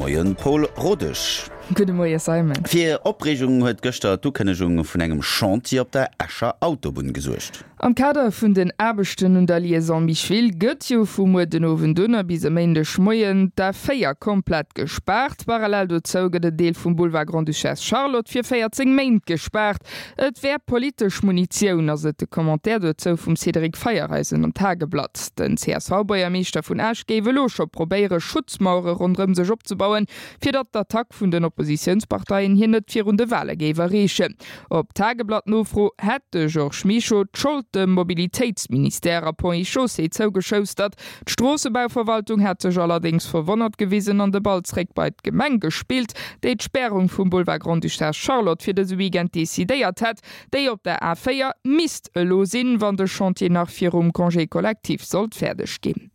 Moien, Paul Rodesch. Gudde Moie Simon. Fir Opreegung huet gëschter d'Ukënnegung vun engem Chantier op der Escher Autobunn gesuergt. Am Kader vun den Aarbechten un der Liaison Micheville gëtt jo vu muer den Owend un a bis e Méindeg Moien d'A4 komplett gespaart. Parallel dozou gëtt en Deel vum Boulevard Grande-Duchesse Charlotte fir 14 Méint gespaart. Et wär politesch Munitioun, ass et de Commentaire dozou vum Cédric Feiereisen am Tageblatt. Den CSV-Buergermeeschter vun Esch géif elo scho probéiere Schutzmauere ronderëm sech opzebauen, fir datt d'Attack vun den Oppositiounsparteien hien net virun de Wale géif erreechen. Op Tageblatt-Nofro hätt de Georges Mischo d'Schold dem Mobilitéitsministère a Ponts et Chaussées zougeschoustert. D'Stroossebauverwaltung hätt sech allerdéngs verwonnert gewisen an de Ball zréck bei d'Gemeng gespillt, déi d'Spärung vum Boulevard Grande-Duchesse Charlotte fir dëse Weekend decidéiert hätt. Déi op der A4 misst elo sinn, wann de Chantier nach virum Congé collectif sollt fäerdeg ginn.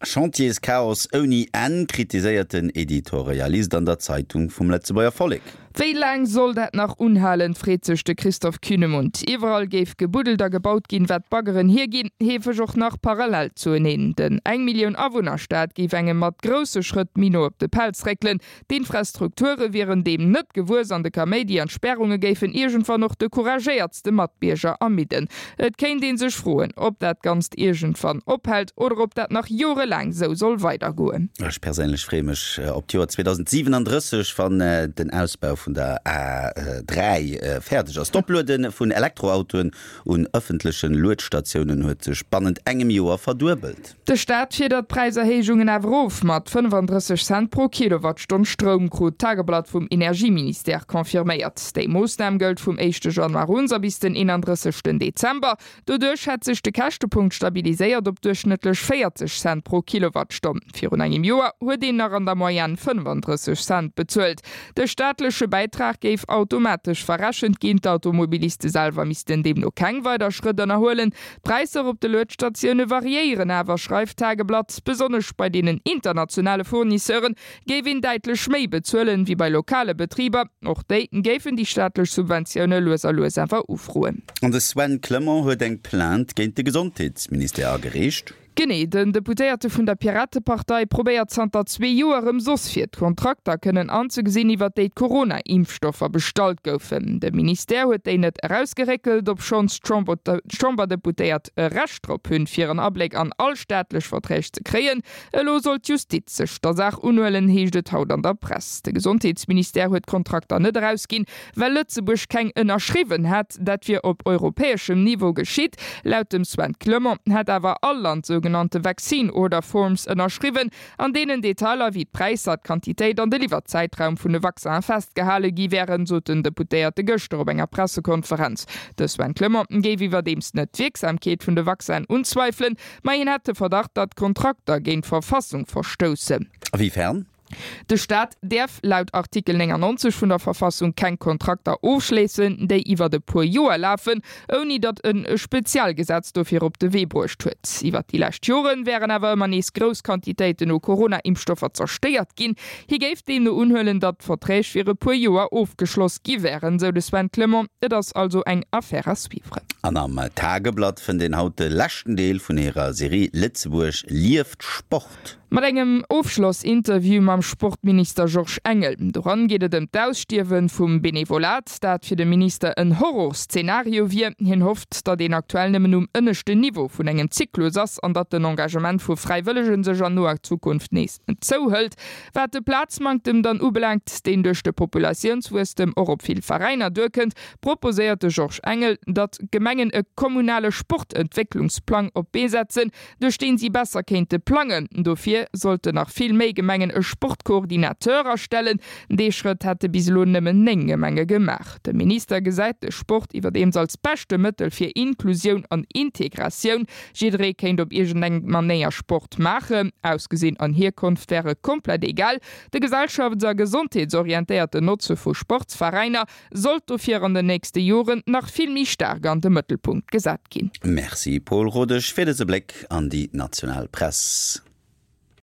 Chantierschaos ouni Enn, kritiséiert den Editorialist an der Zeitung vum Lëtzebuerger Vollek. Wéi laang soll dat nach unhalen, freet sech de Christoph Kühnemund. Iwwerall géif gebuddelt a gebaut ginn, wat d'Baggeren hierginn, heefeg och nach parallel zueneen. Den eng Millioun Awunner-Staat géif engem mat grousse Schrëtt méi no op de Pelz réckelen. D'Infrastrukture wieren deem net gewuess an de Kaméidi an d'Spärunge géifen iergendwann och de couragéiertste Matbierger ermidden. Et kéint ee sech froen, ob dat Ganzt iergendwann ophält oder ob dat nach jorelaang sou soll weidergoen. Ech perséinlech freeë mech op d'Joer 2037, wann den Ausbau vun der A3 fäerdeg ass. D'Opluede vun Elektroautoen un ëffentleche Luedstatiounen huet sech bannent engem Joer verduebelt. De Staat fiedert d'Präiserhéijungen awer erof mat 35 Cent pro Kilowattstonn Stroum, krut d'Tageblatt vum Energieministère confirméiert. Déi Moossnam gëllt vum éischte Januar un a bis den 31 Dezember. Doduerch hätt sech de Käschtepunkt stabiliséiert op duerchschnëttlech 40 Cent pro Kilowattstonn. Virun engem Joer huet een nach an der Moyenne 35 Cent bezuelt. De staatleche Bäitrag géif automatesch verrechent ginn, d'Automobiliste selwer missten deemno keng weider Schrëtt ënnerhuelen. D'Präisser op de Luedstatioune variéieren awer, schreift d'Tageblatt. Besonnesch bei deenen internationale Fournisseure géif een däitlech méi bezuelen, wéi bei lokale Betriber. Och déi géifen déi staatlech Subventioune lues a lues awer ufroen. An de Sven Clement huet eng Plainte géint de Gesondheetsministère agereecht. Genee, den Deputéierte vun der Piratepartei probéiert zanter zwee Joer erëm soss fir d'Kontrakter kënnen anzegesinn, iwwer déi d'Corona-Impfstoffer bestallt goufen. De Ministère huet déi net erausgeréckelt, obschonns d'Chamberdeputéiert e Recht drop hunn, fir en Abléck an all staatlech Verträg ze kréien. Elo soll d'Justiz sech der Saach unhuelen, heescht et haut an der Press. De Gesondheetsministère huet d'Kontrakter net erausginn, Well Lëtzebuerg keng ënnerschriwwen hätt, dat wier op europäeschem Niveau geschitt. Laut dem Sven Clement hätt awer all Land sougenannte Vaccine Order Forms ënnerschriwwen, an deenen Detailer wéi d'Präisser, d'Quantitéit an de Liwwerzäitraum vun de Vaccinen festgehale gi wären, sot den Deputéierte gëschter op enger Pressekonferenz. De Sven Clement géif iwwerdeems net d'Wierksamkeet vun de Vaccinen unzweifelen, ma hien hätt de Verdacht, datt d'Kontrakter géint d'Verfassung verstoussen. A wéi fern? De Staat däerf laut Artikel 99 vun der Verfassung keng Kontrakter ofschléissen, déi iwwert e puer Joer lafen, ouni datt en e Spezialgesetz dofir op de Wee bruecht huet. Iwwert déi lescht Jore wären awer ëmmer nees grouss Quantitéiten u Corona-Impfstoffer zerstéiert ginn. Hie géif deemno unhuelen, datt d'Verträg fir e puer Joer ofgeschloss gi wären, sou de Sven Clement. Et ass also eng Affaire à suivre. An am Tageblatt fënnt een haut de leschten Deel vun hirer Serie Lëtzebuerg lieft Sport. Mat engem Ofschlossinterview mam Sportminister Georges Engel. Doran geet et ëm d'Ausstierwe vum Benevolat, dat fir de Minister en Horrorszenario wier. Hien hofft, datt een aktuell nëmmen um ënneschten Niveau vun engem Zyklus ass an datt den Engagement vu Fräiwëllege sech an noer Zukunft nees zouhëlt. Wat de Plazmanktem dann ubelaangt, deen duerch de Populatiounswuesstem och op vill Veräiner duerkënnt, proposéiert de Georges Engel, datt d'Gemengen e kommunale Sportentwécklungsplang op d'Bee setzen, duerch deen si besser kéinte plangen. Dofir sollten nach vill méi Gemengen e Sportcoordinateur astellen. Dee Schrëtt hätte bis elo nëmmen 9 Gemenge gemaach. De Minister gesäit de Sport iwwerdeems als beschte Mëttel fir Inklusioun an Integratioun. Jidderee kéint op iergendeng Manéier Sport maachen. Ausgesinn an Hierkonft wäre komplett egal. De gesellschafts a gesondheetsorientéierten Notze vu Sportsveräiner sollt dofir an den nächste Joren nach vill méi staark an de Mëttelpunkt gesat ginn. Merci Paul Rodesch fir dëse Bléck an déi national Press.